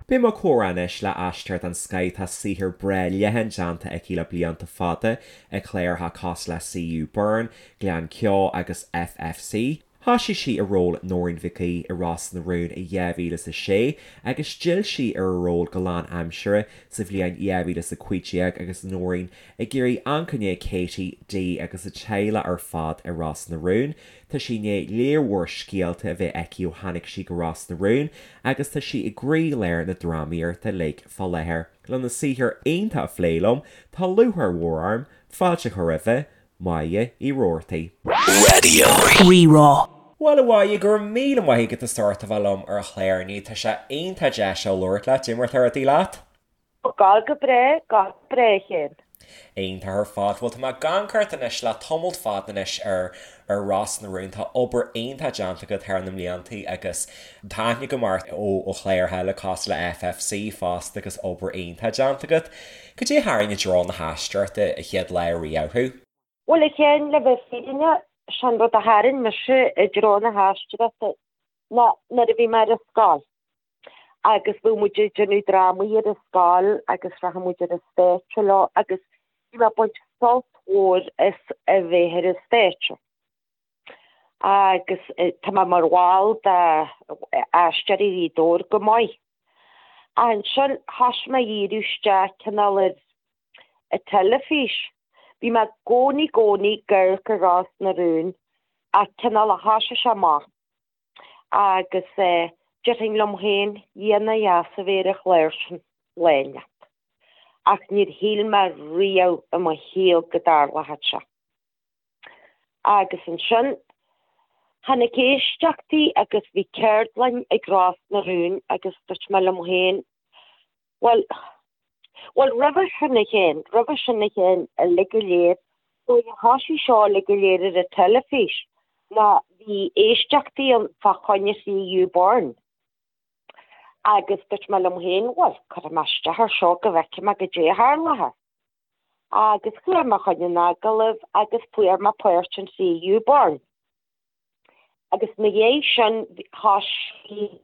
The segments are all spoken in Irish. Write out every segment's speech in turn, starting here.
Beidh mo chomhrá anois le aisteoir den scoith tá saothar breá leathan déanta aici le blianta fada i gcláracha cosúil le CU Burn, Gleann Ceo agus FFC. Thoisigh sí i ról Nóirín Mhic Aoidh i Ros na Rún i 2006 agus d'fhill sí ar a ról go lánaimseartha sa bhliain 2015 agus Nóirín ag iarraidh amharc i ndiaidh Katie, Dee agus a teaghlach ar fad i Ros na Rún. Tá sí i ndiaidh léar mhór scéalta a bheith aici ó tháinig sí go Ros na Rún agus tá sí i gcroílár na drámaíochta uilig fá láthair. Lena saothar iontach a phlé liom, tá lúcháir mhór orm fáilte a chur roimhe, Máire Uí Rabhartaigh. Raidió Rí-Rá. Bhuel a Mháire, go raibh míle maith agat as ucht a bheith liom ar an chlár inniu. Tá sé iontach deas labhairt leat. Cad é mar atá rudaí leat? Gabháil go breá, gabháil go breá, a Chéin. Iontach ar fad. Bhuel, tá mé ag amharc ort anois le tamalt fada anois ar ar Ros na Rún. Tá obair iontach déanta agat thar na mbliantaí agus tá aithne agam ort ó ó chláracha eile cosúil le FFC fosta agus obair iontach déanta agat. Cad é a tharraing i dtreo na haisteoireachta an chéad lá riamh thú? Bhuel, a Chéin, le bheith fírinneach, sé'n rud a tharraing mise i dtreo na haisteoireachta ná nuair a bhí mé ar an scoil. agus bhí muid ag déanamh drámaí ar an scoil agus rachadh muid ar an stáitse leo agus bhí mé ag baint sult mhór as a bheith ar an stáitse. Agus tá mé mar bhall de Aisteoirí Ghaoth Dobhair go maith. Ach ansin thoisigh mé a dhíriú isteach cineál ar an teilifís. Bhí mé i gcónaí gcónaí ag amharc ar Ros na Rún ach cineál a thoisigh sé amach. Agus déarfainn liom féin, Dhia nár dheas a bheith ar an chlár sin lá inteacht. Ach níor shíl mé riamh i mo shaol go dtarlódh sé. Agus ansin, tháinig éisteachtaí agus bhí ceardlann ag Ros na Rún agus dúirt mé liom féin, Bhuel, bhuel, roimhe sin a Chéin, roimhe sin a Chéin, uilig go léir, nuair a thoisigh seo uilig go léir ar an teilifís, ná bhí éisteachtaí ann fá choinne CU Burn. Agus dúirt mé liom féin, bhuel, cuirfidh mé isteach ar seo go bhfeicfidh mé goidé a tharlóidh. Agus chuaigh mé chun an agallaimh agus fuair mé páirt in CU Burn. Agus ina dhiaidh sin, thoisigh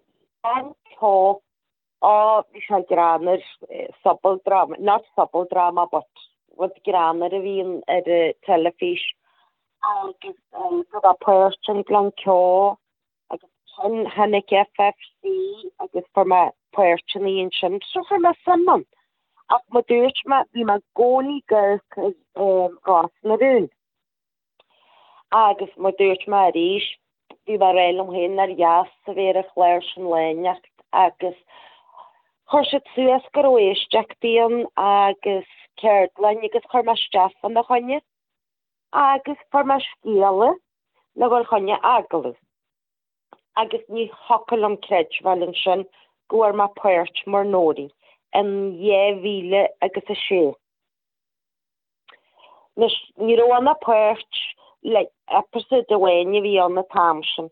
an ceol Á, bhí sé greannmhar, sobaldráma, not sobaldráma but rud greannmhar a bhíonn ar an teilifís agus go raibh páirt in Gleann Ceo agus ansin tháinig FFC agus fuair mé páirteanna ansin so chuir mé suim ann. Ach mar dúirt mé, bhí mé i gcónaí ag amharc ar Ros na Rún. Agus mar dúirt mé arís, bhí mé ag rá liom féin nár dheas a bheith ar an chlár sin lá inteacht agus chuir siad suas go raibh éisteachtaí ann agus ceardlann agus chuir mé isteach fána choinne agus fuair mé scéala le dhul choinne agallamh agus ní thiocfadh liom creidbheáil ansin go bhfuair mé páirt mar Nóirín in 2000 agus 6. Anois, ní raibh ann ach páirt like episode amháin a bhí ann an t-am sin.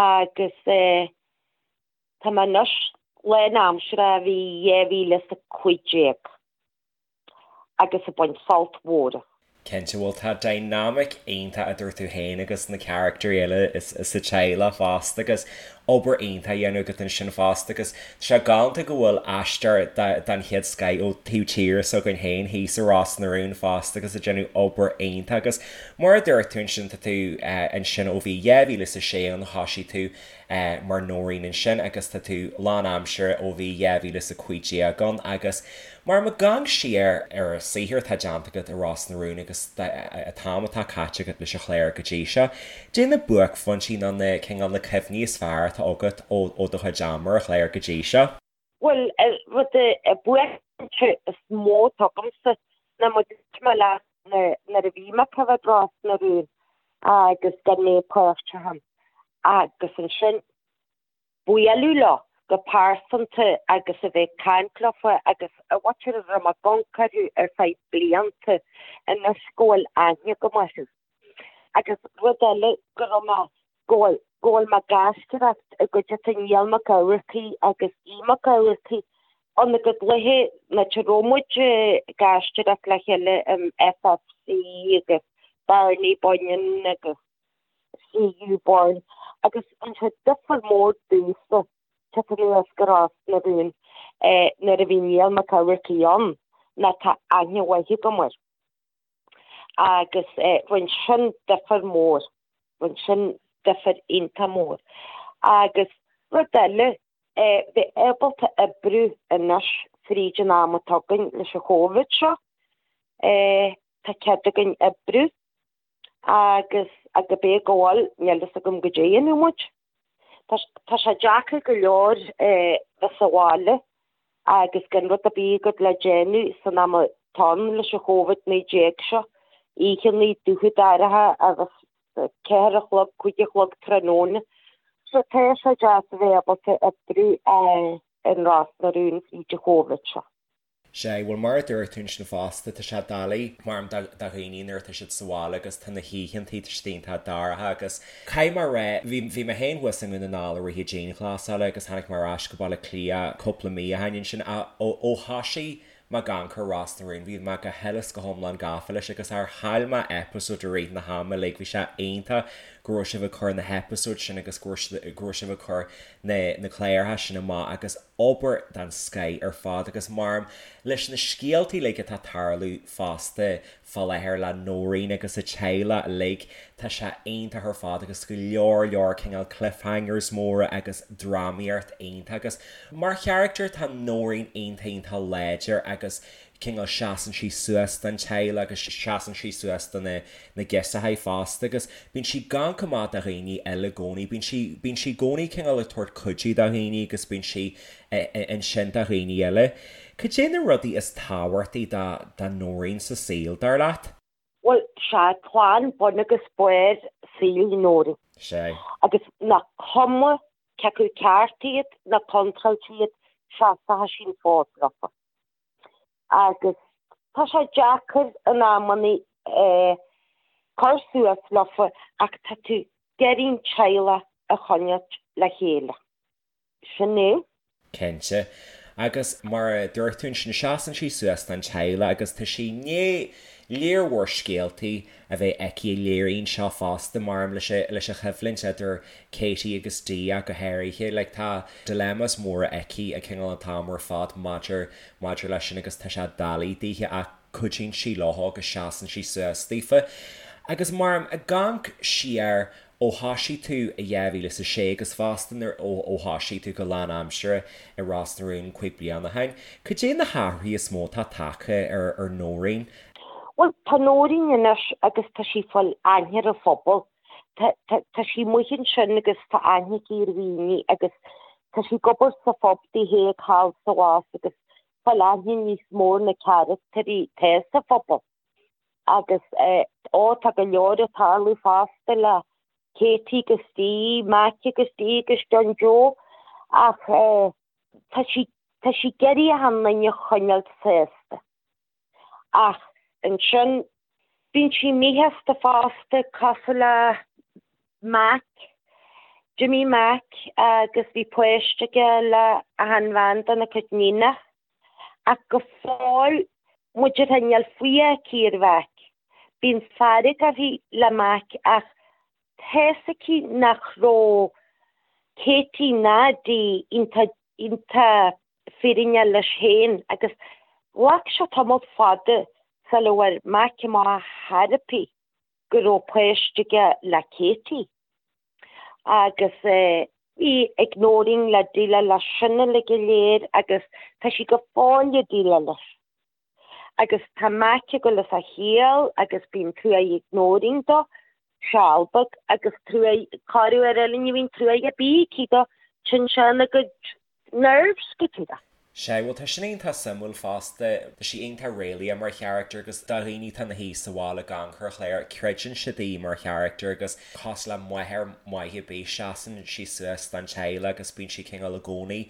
Agus eh, tá mé anois lánaimseartha ó bhí 2015 agus ag baint sult mhór as. Cinnte, bhuel tá dynamic iontach idir tú féin agus na caractarí eile sa teaghlach fosta agus obair iontach á dhéanamh agat ansin fosta agus tá sé galánta go bhfuil aisteoir den chéad scoith ó taobh tíre s'againn féin thíos i Ros na Rún fosta agus ag déanamh obair iontach agus mar a dúirt tú ansin tá tú ansin ó bhí 2006 ann thoisigh tú mar Nóirín ansin agus tá tú lánaimseartha ó bhí 2015 ann agus mar má amharcann siar ar an saothar atá déanta agat i Ros na Rún agus an t-am atá caite agat leis an chlár go dtí seo, cad é na buaicphointí nó na cineál na cuimhní is fearr atá agat ó ó do chuid ama ar an chlár go dtí seo? Bhuel, rud an buaicphointe is mó atá agamsa ná mar dúirt mé leat nuair a bhí mé ag coimhéad Ros na Rún agus gan mé páirteach ann agus ansin bualadh leo go pearsanta agus a bheith ag caint leofa agus a mhuintir a raibh mé ag amharc orthu ar feadh blianta anois go bhfuil aithne agam orthu. Agus rud eile go raibh mé, go bhfuil, go bhfuil mé ag aisteoireacht i gcuideachta Niall Mac Eachmharcaigh agus Aodh Mac Eachmharcaigh ann go dluithe nuair a raibh muid ag aisteoireacht le chéile in FFC agus Barney Bunyan agus CU Burn agus an sé difear mór domhsa. Teacht anuas go Ros na Rún nuair a bhí Niall Mac Eachmharcaigh ann ná tá aithne mhaith agam air. Agus rinne sin difear mór, rinne sin difear iontach mór. Agus rud eile, bheith ábalta oibriú anois fríd an am atá againn leis an Chóivid seo, tá cead againn oibriú agus cibé go bhfuil, níl fhios agam goidé a dhéanfaidh muid. Tá sé deacair go leor bheith sa bhaile agus gan rud ar bith agat le déanamh san am atá ann leis an Chóivid-19 seo, oícheannaí dubha dorcha agus 4 a chlog, 5 a chlog tráthnóna. So tá sé deas a bheith ábalta oibriú in Ros na Rún fríd an Chóivid seo. Sea, bhuel mar a dúirt tú ansin fosta, tá sé doiligh mar do dhaoine nuair atá siad sa bhaile agus tá na hoícheantaí, tá siad iontach dorcha agus caithfidh mé a rá, bhí, bhí mé féin thuas i nDún na nGall i rith an dianghlasála agus tháinig mé ar ais go Baile Átha Cliath cúpla mí ó shin ansin ach ó, ó thoisigh mé ag amharc ar Ros na Rún, bhí mé go huile is go hiomlán gafa leis agus char chaill mé episode i rith na hama uilig, bhí sé iontach go raibh sibh ag cur na heipeasóid sin agus go raibh, go raibh sibh ag cur na, na cláracha sin amach agus. obair den scoith ar fad agus maram leis na scéaltaí uilig atá ag tarlú fosta fá láthair le Nóirín agus a teaghlach uilig, tá sé iontach ar fad agus go leor leor cineál cliffhangers móra agus drámaíocht iontach agus mar charachtar tá Nóirín iontach iontach láidir agus cineál seasann sí suas don teaghlach agus seasann sí suas do na na girseachaí fosta agus bíonn sí ag amharc amach do dhaoine eile i gcónaí, bíonn sí, bíonn sí i gcónaí cineál ag tabhairt cuidiú do dhaoine agus bíonn sí ansin do dhaoine eile. Cad é na rudaí is tábhachtaí do do Nóirín sa saol, dar leat? Bhuel, sea, clann bun agus barr saoil Nóirín. Sea. Agus nach cuma cé acu ceart iad nó contráilte iad, seasfaidh sí an fód leofa. Agus tá sé deacair in amannaí cur suas leofa ach tá tú ag iarraidh an teaghlach a choinneáilt le chéile. Sin é. Cinnte. Agus mar a dúirt tú ansin, seasann sí suas don teaghlach agus tá sí i ndiaidh lear mhór scéaltaí a bheith aici a léiríonn seo fosta, maram leis leis an choimhlint idir Katie agus Dee ach go háirithe. Like tá dilemmas móra aici ag cineál an t-am ar fad maidir maidir leis sin agus tá sé doiligh daoithe ach cuidíonn sí leo agus seasann sí suas daofa. Agus maram ag amharc siar ó thoisigh tú i 2006 agus fosta nuair ó ó thoisigh tú go lánaimseartha i Ros na Rún 5 bliana ó shin, cad é na hathruithe is mó atá tagtha ar ar Nóirín? Bhuel, tá Nóirín anois agus tá sí ag fáil aithne ar an phobal. Tá, tá, tá sí amuigh ansin agus tá aithne aici ar dhaoine agus tá sí ag obair sa phub di féin thall is abhus agus fáil aithne níos mó ar na carachtairí atá sa phobal. Agus, eh, ó, tá go leor ag tarlú fosta le Katie agus Dee, Mac agus Dee agus John Joe ach, eh, tá sí, tá sí ag iarraidh achan duine a choinneáil sásta. Ach ansin, bíonn sí míshásta fosta, cosúil le Mac, D'imigh Mac agus bhí páiste aige le achan bhean dena cuid níonach. Ach go fóill, muid ar níl fuath aici ar Mhac. Bíonn fearg uirthi le Mac ach tá's aici nach raibh Katie ná Dee iontach iontach fírinneach leis féin agus ghlac sé tamall fada sula bhfuair Mac amach ar chor ar bith go raibh páiste aige le Katie. Agus bhí ag Nóirín le déileáil leis sin uilig go léir agus tá sí go fóill ag déileáil leis. Agus tá Mac ag dul as a chiall agus bíonn truaigh ag Nóirín dó, seal beag, agus truaigh, corruair eile ní bhíonn truaigh ar bith aici dó, téann sé ina gcuid nerves go díreach. Sea, bhuel tá sin iontach suimiúil fosta, tá sí iontach réalaíoch mar charachtar agus do dhaoine atá ina shuí sa bhaile ag amharc ar an chlár, creideann siad í mar charachtar agus cosúil le máthair mhaith ar bith, seasann sí suas don teaghlach agus bíonn sí cineál i gcónaí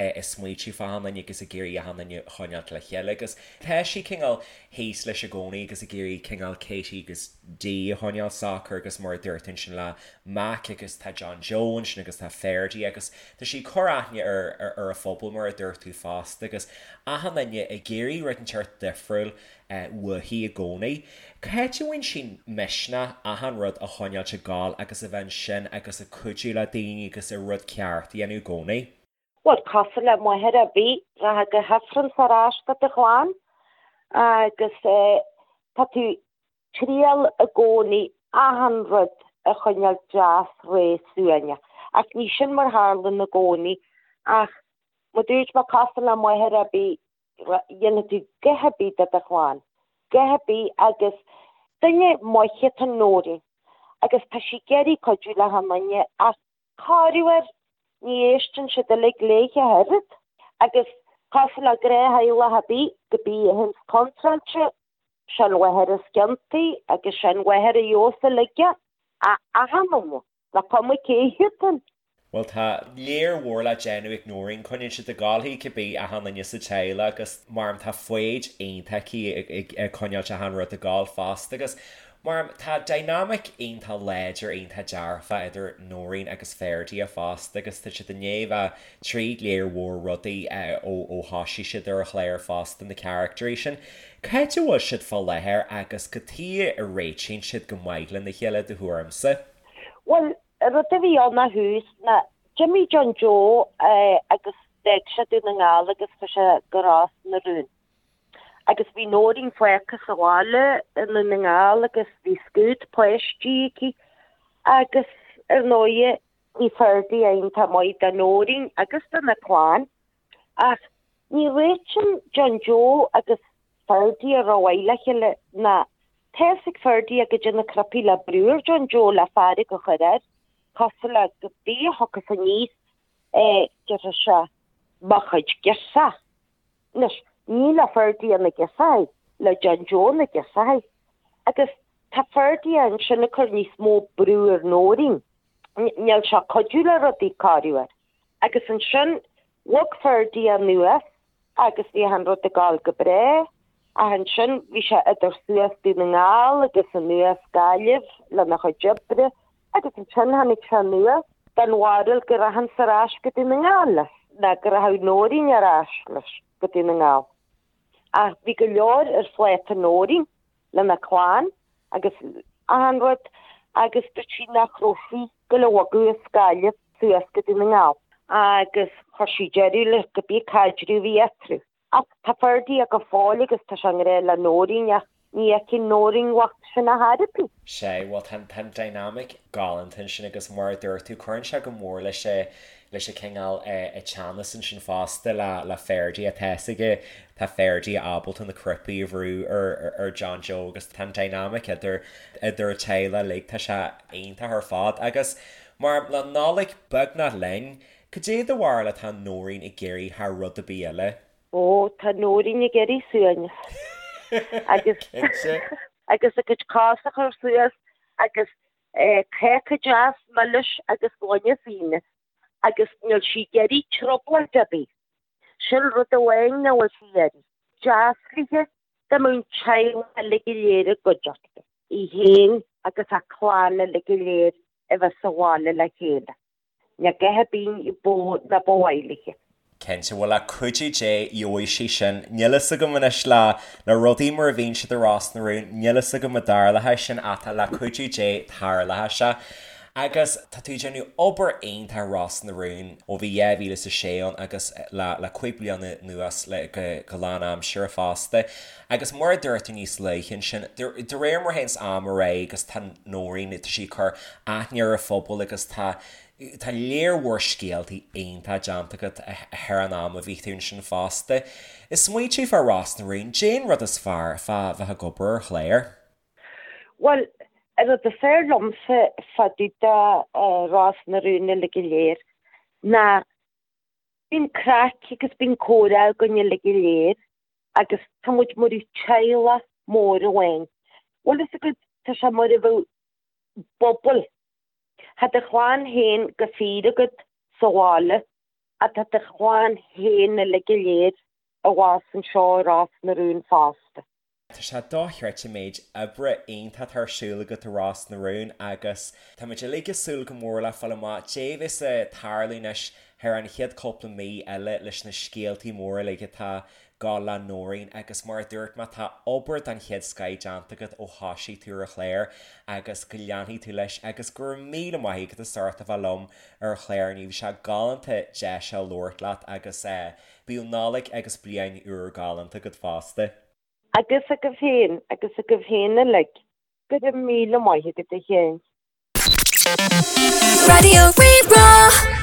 ag smaoitiú fá achan duine agus ag iarraidh achan duine a choinneáilt le chéile agus tá sí cineál thíos leis i gcónaí agus ag iarraidh cineál Katie agus Dee a choinneáil socair agus mar a dúirt tú ansin le Mac agus tá John Joe ansin agus tá Ferdie agus tá sí ag cur aithne ar ar an phobal mar a dúirt tú fosta agus achan duine ag iarraidh rud inteacht difriúil uaithi i gcónaí. Cá háit a bhfaigheann sí misneach achan rud a choinneáilt ag gabháil agus a bheith ansin agus ag cuidiú le daoine agus an rud ceart a dhéanamh i gcónaí? Bhuel, cosúil le máthair ar bith, rachfá go hIfreann ar ais do do chlann agus tá tú triail i gcónaí achan rud a choinneáil deas réidh suaimhneach. Ach ní sin mar tharlann i gcónaí ach mar dúirt mé cosúil le máthair ar bith, dhéanfaidh tú a dhath ar bith do do chlann, a dhath ar bith agus duine maith atá in Nóirín agus tá sí ag iarraidh cuidiú le achan duine ach Corruair, ní éisteann siad uilig léithe ach oiread, agus cosúil le gnáth-theaghlach ar bith, cibé a théanns contráilte, sé an mháthair is ciontaí agus sé an mháthair a gheobhas uilig é, achan duine, nach cuma cé hiad an. Bhuel, tá lear mhór le déanamh ag Nóirín, coinníonn siad ag gabháil í cibé achan duine sa teaghlach agus mar tá foighid iontach aici ag coinneáilt achan rud ag gabháil fosta agus Mar tá dynamic iontach láidir, iontach dearfach idir Nóirín agus Ferdia fosta agus tá siad i ndiaidh bheith tríd léar mhór rudaí ó thoisigh siad ar an chlár fosta, na caractairí sin. Cá háit a bhfuil siad fá láthair agus cad tuige a réitíonn siad go maith lena chéile do thuairimse? Bhuel, an rud a bhí ann ó thús ná d'imigh John Joe agus d'fhág sé Dún na nGall agus chuaigh sé go Ros na Rún. Agus bhí Nóirín fágtha sa bhaile i nDún na nGall agus bhí scuad páistí aici agus ar ndóighe bhí Ferdia iontach maith do Nóirín agus do na clann. Ach ní réitíonn John Joe agus Ferdia rómhaith le chéile ná tá fhios ag Ferdia goidé na cnaipí le brú ar John Joe le fearg a chur air, cosúil le cibé a thiocfas aníos déarfaidh sé mo chuid girseach. Anois, ní le Ferdia na girseacha, le John Joe na girseacha. Agus tá Ferdia ansin ag cur níos mó brú ar Nóirín. Níl sé ag cuidiú le rudaí, corruair. Agus ansin, bhog Ferdia anuas agus bhí achan rud ag gabháil go breá. Ach ansin, bhí sé idir suas Dún na nGall agus anuas Gaillimh lena chuid oibre. Agus ansin tháinig sé anuas den bharúil go rachainnse ar ais go Dún na nGall leis, ná go rachadh Nóirín ar ais leis go Dún na nGall. Ach bhí go leor ar phláta Nóirín lena clann agus achan rud agus dúirt sí nach raibh sí ag goil a bhogadh as Gaillimh suas go Dún na nGall. Agus chuir sí deireadh le cibé caidreamh a bhí eatarthu. Ach tá Ferdia go fóill agus tá sé i ngrá le Nóirín ach ní fheiceann Nóirín bhocht sin ar chor ar bith. Sea, bhuel tá an dynamic galánta ansin agus mar a dúirt tú, cuireann sé go mór leis a leis a cineál a teannas ansin fosta le le Ferdia. Tá fhios aige, tá Ferdia ábalta na cnaipí a bhrú ar ar John Joe agus tá an dynamic idir idir an teaghlach uilig, tá sé iontach ar fad. Agus mar le Nollaig beagnach linn, Cad é do bharúil atá Nóirín ag iarraidh thar rud ar bith eile? Ó, tá Nóirín ag iarraidh suaimhneas. Agus Cinnte. agus a cuid cos a chur suas agus cáca deas milis agus gloine fíona agus níl sí ag iarraidh trioblóid ar bith. Sin rud amháin nach bhfuil sí ag iarraidh. Deas léithe dá mbeadh an teaghlach uilig go léir i gcuideachta, í féin agus a clann uilig go léir a bheith sa bhaile le chéile. Níl a dhath ar bith ní ba mhaith léithe. Cinnte, bhuel le cuidiú Dé gheobhaidh sí sin. Níl fhios agam anois le le rudaí mar a bhíonn siad i Ros na Rún, níl fhios agam an dtarlóidh sin ach tá le cuidiú Dé tarlóidh sé. Agus tá tú ag déanamh obair iontach i Ros na Rún ó bhí 2006 ann agus le le 5 bliana anuas le go go lánaimseartha fosta. Agus mar a dúirt tú níos luaithe ansin, de réir mar a théanns am ar aghaidh agus tá Nóirín, tá sí ag cur aithne ar an phobal agus tá tá léar mhór scéaltaí iontach déanta agat thar an am a bhí tú ansin fosta. Ag smaoitiú fá Ros na Rún, caidé an rud is fearr fá bheith ag obair ar chlár? Bhuel, an rud is fearr liomsa fá dtaobh de Ros na Rún uilig go léir ná bíonn craic agus bíonn comhrá againn uilig go léir agus tá muid mar teaghlach mór amháin. Bhfuil fhios agat, tá sé mar a bheadh bubble. Tá do chlann féin go fíor agat sa bhaile ach tá do chlann féin uilig go léir abhus anseo i Ros na Rún fosta. Tá sé dochreidte an méid oibre iontach atá ar siúl agat i Ros na Rún agus tá muid uilig ag súil go mór le fáil amach caidé a bheas ag tarlú anois thar an chéad cúpla mí eile leis na scéaltaí móra uilig atá. Gabháil le Nóirín agus mar a dúirt mé tá obair den chéad scoith déanta agat ó thoisigh tú ar an chlár agus go leanfaidh tú leis agus go raibh míle maith agat as ucht a bheith liom ar an chlár inniu. Bhí sé galánta deis a labhairt leat agus bíodh Nollaig agus Bliain Úr galánta agat fosta. Agus agaibh féin, agus agaibh féin uilig. Go raibh míle maith agat a Sheáin. Raidió Rí-Rá.